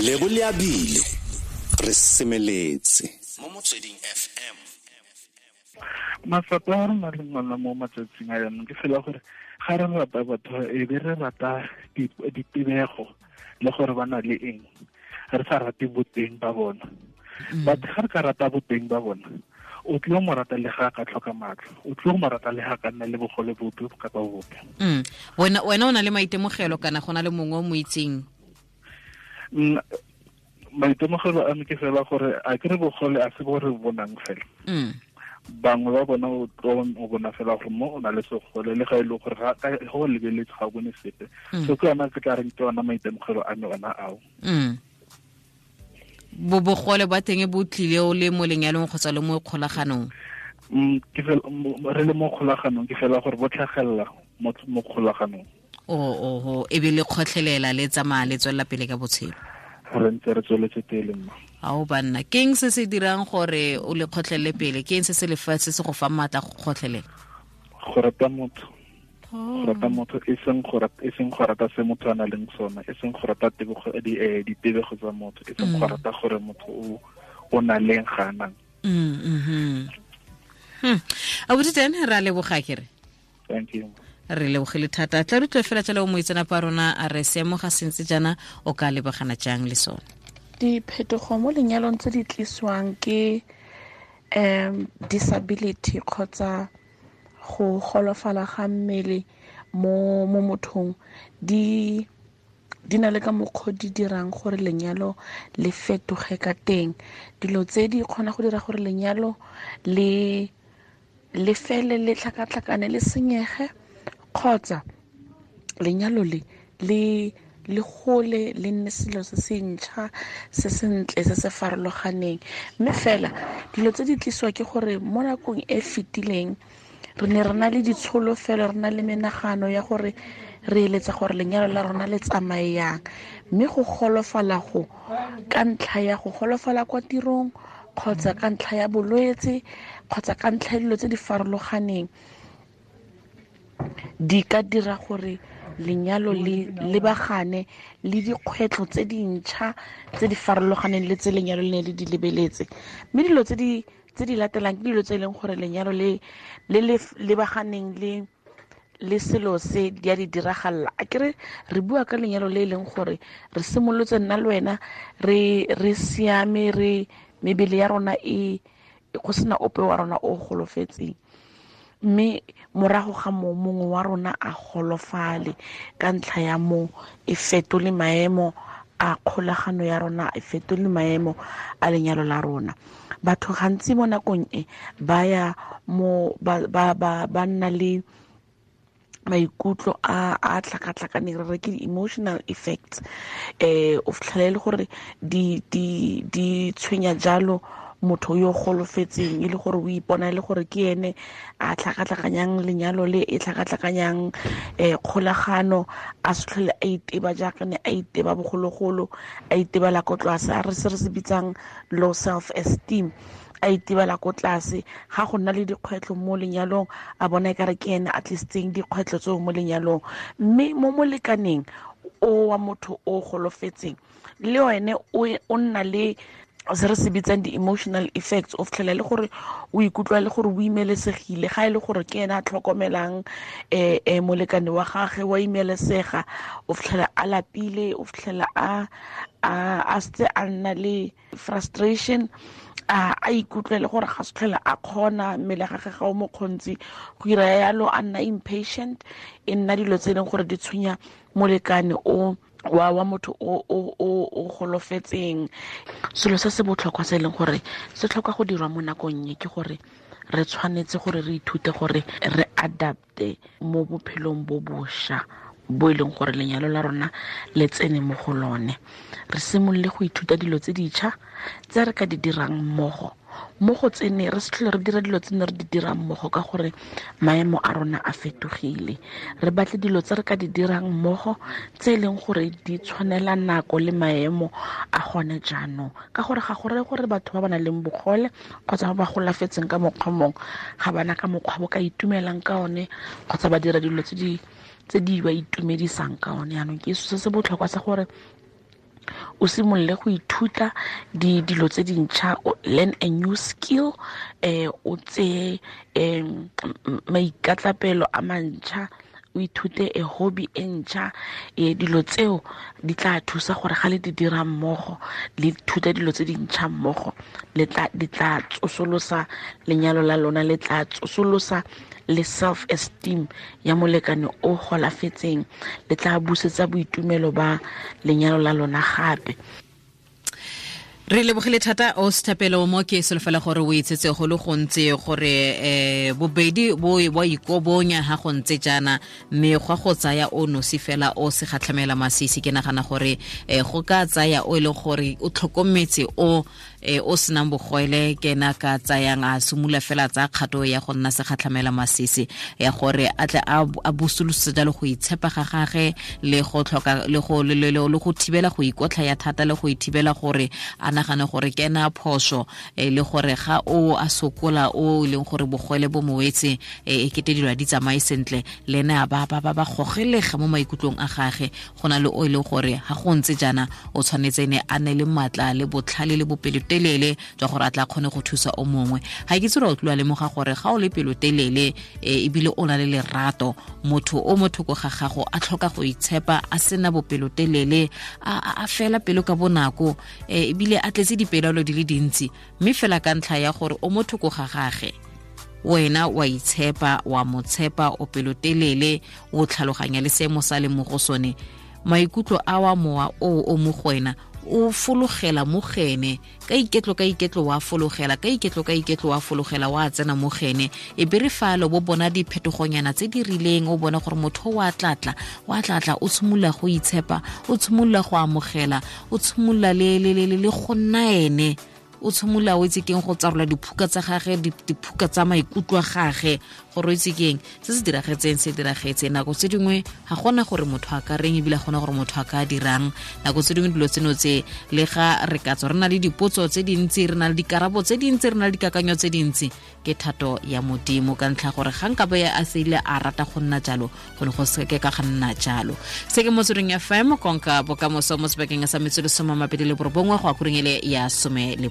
Lebo Leabile re semeletse mo Motsweding FM. Matsapa a re na leng ona mo matsatsing a yanong ke fela gore ga re rata batho e be re rata ditebego le gore ba na le eng, re sa rate boteng ba bona. But ga re ka rata boteng ba bona, o tlile mo rata le ga ka tlhoka matlho, o tlile mo rata le ga ka nna le bogole bope kapa bope. Wena o na le maitemogelo kana go na le mongwe o mo itseng? Maitemogelo a me ke fela gore a ke re bogole a se bo re bonang fela. Bangwe ba bona o tlo o bona fela gore mo o na le segole le ga e le gore ga go lebeletse ga o bone sepe. So ke yona ke tla reng ke yona maitemogelo a me ona ao. Bo bogole ba teng bo tlile o le mo lenyalong kgotsa le mo kgolaganong? Ke fela re le mo kgolaganong, ke fela gore bo tlhagelela mo kgolaganong. O e be le kgotlhelela le tsamaya le tswelela pele ka botshelo. Re ntse re tsweletse pele mma. Ao banna, ke eng se se dirang gore o le kgotlhelele pele? Ke eng se se lefatshe se go fa maatla go kgotlhelela? Go rata motho. Go rata motho, e seng go rata, e seng go rata se motho a nang le sona, e seng go rata tebogo, ditebego tsa motho, e seng go rata gore motho o na leng ga a nang. Abuti teng re a leboga kere. Thank you. Re lebogile thata. Tla re utlwe fela jalo moitseanape wa rona a re seemo ga se ntse jaana o ka lebagana jang le sone. Diphetogo mo lenyalong tse di tlisiwang ke disability kgotsa go golofala ga mmele mo mothong di na le ka mokgwa di dirang gore lenyalo le fetoge ka teng. Dilo tse di kgona go dira gore lenyalo le fele le tlhakatlhakane le senyege, kgotsa lenyalo le le gole le nne selo se se ntšha se sentle se se farologaneng. Mme fela dilo tse di tlisiwa ke gore mo nakong e fetileng re ne re na le ditsholofelo, re na le menagano ya gore re eletsa gore lenyalo la rona le tsamaye yang, mme go golofala go ka ntlha ya go golofala kwa tirong kgotsa ka ntlha ya bolwetse kgotsa ka ntlha ya dilo tse di farologaneng di ka dira gore lenyalo le lebagane le dikgwetlho tse dintšha tse di farologaneng le tse lenyalo le ne le di lebeletse. Mme dilo tse di latelang ke dilo tse e leng gore lenyalo le le lebaganeng le selo se di a di diragalla. A kere re bua ka lenyalo le e leng gore re simolotse nna le wena re siame, re mebele ya rona e go sena ope wa rona o golofetseng, mme morago ga moo mongwe wa rona a golofale ka ntlha ya moo e fetole maemo a kgolagano ya rona, e fetole maemo a lenyalo la rona. Batho gantsi mo nakong e ba ya mo ba nna le maikutlo a tlhakatlhakaneng, re re ke di-emotional effects. O fitlhela e le gore di tshwenya jalo motho yo golofetseng, e le gore o ipona e le gore ke ene a tlhakatlhakanyang lenyalo le e tlhakatlhakanyang kgolagano, a se tlhole a iteba jaaka ne a iteba bogologolo, a itebela ko tlase, a re se re se bitsang low self esteem, a itebela ko tlase. Ga go nna le dikgwetlho mo lenyalong a bona e kare ke ene a tlisitseng dikgwetlho tseo mo lenyalong. Mme mo molekaneng o wa motho o golofetseng le ene o nna le se re se bitsang di-emotional effects, o fitlhela le gore o ikutlwa le gore o imelesegile ga e le gore ke ene a tlhokomelang molekane wa gagwe, wa imelesega, o fitlhela a lapile, o fitlhela a setse a nna le frustration, a ikutlwe le gore ga se tlhole a kgona, mmele gagwe ga o mo kgontsi go ira yalo, a nna impatient. E nna dilo tse e leng gore di tshwenya molekane o wa motho o golofetseng. Selo se se botlhokwa se e leng gore se tlhoka go dirwa mo nakong e ke gore re tshwanetse gore re ithute gore re adapte mo bophelong bo bošwa bo e leng gore lenyalo la rona le tsene mo go lone. Re simolole go ithuta dilo tse ditšha tse re ka di dirang mmogo, mo go tsene re se tlhole re dira dilo tse ne re di dirang mmogo ka gore maemo a rona a fetogile. Re batle dilo tse re ka di dirang mmogo tse e leng gore di tshwanela nako le maemo a gone jaanong, ka gore ga go reye gore batho ba ba nang le bogole kgotsa ba ba golafetseng ka mokgwa mongwe ga bana ka mokgwa bo ka itumelang ka one kgotsa ba dira dilo tse di ba itumedisang ka one. Jaanong ke se se botlhokwa sa gore O simolole go ithuta dilo tse dintšha, learn a new skill, o tseye maikatlapelo a mantšha, o ithute a hobby e ntšha. Dilo tseo di tla thusa gore ga le di dira mmogo, le ithuta dilo tse dintšha mmogo, di tla tsosolosa lenyalo la lona, le tla tsosolosa le self esteem ya molekane o golafetseng, le tla busetsa boitumelo ba lenyalo la lona gape. Re lebogile thata o Sethapelo mo ke solofela gore o itsetse go le gontsi gore bobedi bo ikobonya ha go ntse jaana, mme gwa go tsaya o nosi fela o se gatlhamela masisi. Ke nagana gore go ka tsaya o e leng gore o tlhokometse o o senang bogwele, ke ena ka tsayang a simolola fela tsa kgato ya go nna segatlhamela masisi, ya gore a tle a busolose jalo go itshepa ga gage le go tlhoka le go thibela go ikotlha ya thata, le go ithibela gore a nagane gore ke ena phoso, le gore ga o a sokola o leng gore bogwele bo moetse e kete dilo di tsamaye sentle, le ene a ba gogelega mo maikutlong a gage. Go na le o e leng gore ga go ntse jaana o tshwanetse ne a ne le maatla le botlhale le bopelotelele jwa gore a tla kgone go thusa o mongwe. Ga ke tsere o tloa lemoga gore ga o le pelotelele ebile o na le lerato, motho o mo thoko ga gago a tlhoka go itshepa, a sena bopelotelele, a fela pelo ka bonako, ebile a tletse dipelaelo di le dintsi, mme fela ka ntlha ya gore o mo thoko ga gage, wena wa itshepa, wa mo tshepa, o pelotelele, o tlhaloganya le seemo sa le mo go sone, maikutlo a wa mowa o mo go wena o fologela mo gene ka iketlo wa fologela ka iketlo wa fologela wa tsena mo gene. E be re falo bo bona diphetogonyana tse di rileng, o bona gore motho wa tlatla o tshimolola go itshepa, o tshimolola go amogela, o tshimolola le go nna ene, o tshimolola o itse keng go tsarola diphuka tsa gage, diphuka tsa maikutlo a gage, gore o itse keng se se diragetseng se diragetse. Nako tse dingwe ga gona gore motho a ka reng, ebile ga gona gore motho a ka dirang. Nako tse dingwe dilo tseno tse le ga re ka tswa re na le dipotso tse dintsi, re na le dikarabo tse dintsi, re na le dikakanyo tse dintsi, ke thato ya Modimo ka ntlha gore ga nka be a seile a rata go nna jalo, go ne go se ke ka ga nna jalo. Se ke Motsweding FM, konka bokamoso mo sebakeng sa metsotso 29 go ya kureng ele ya 11.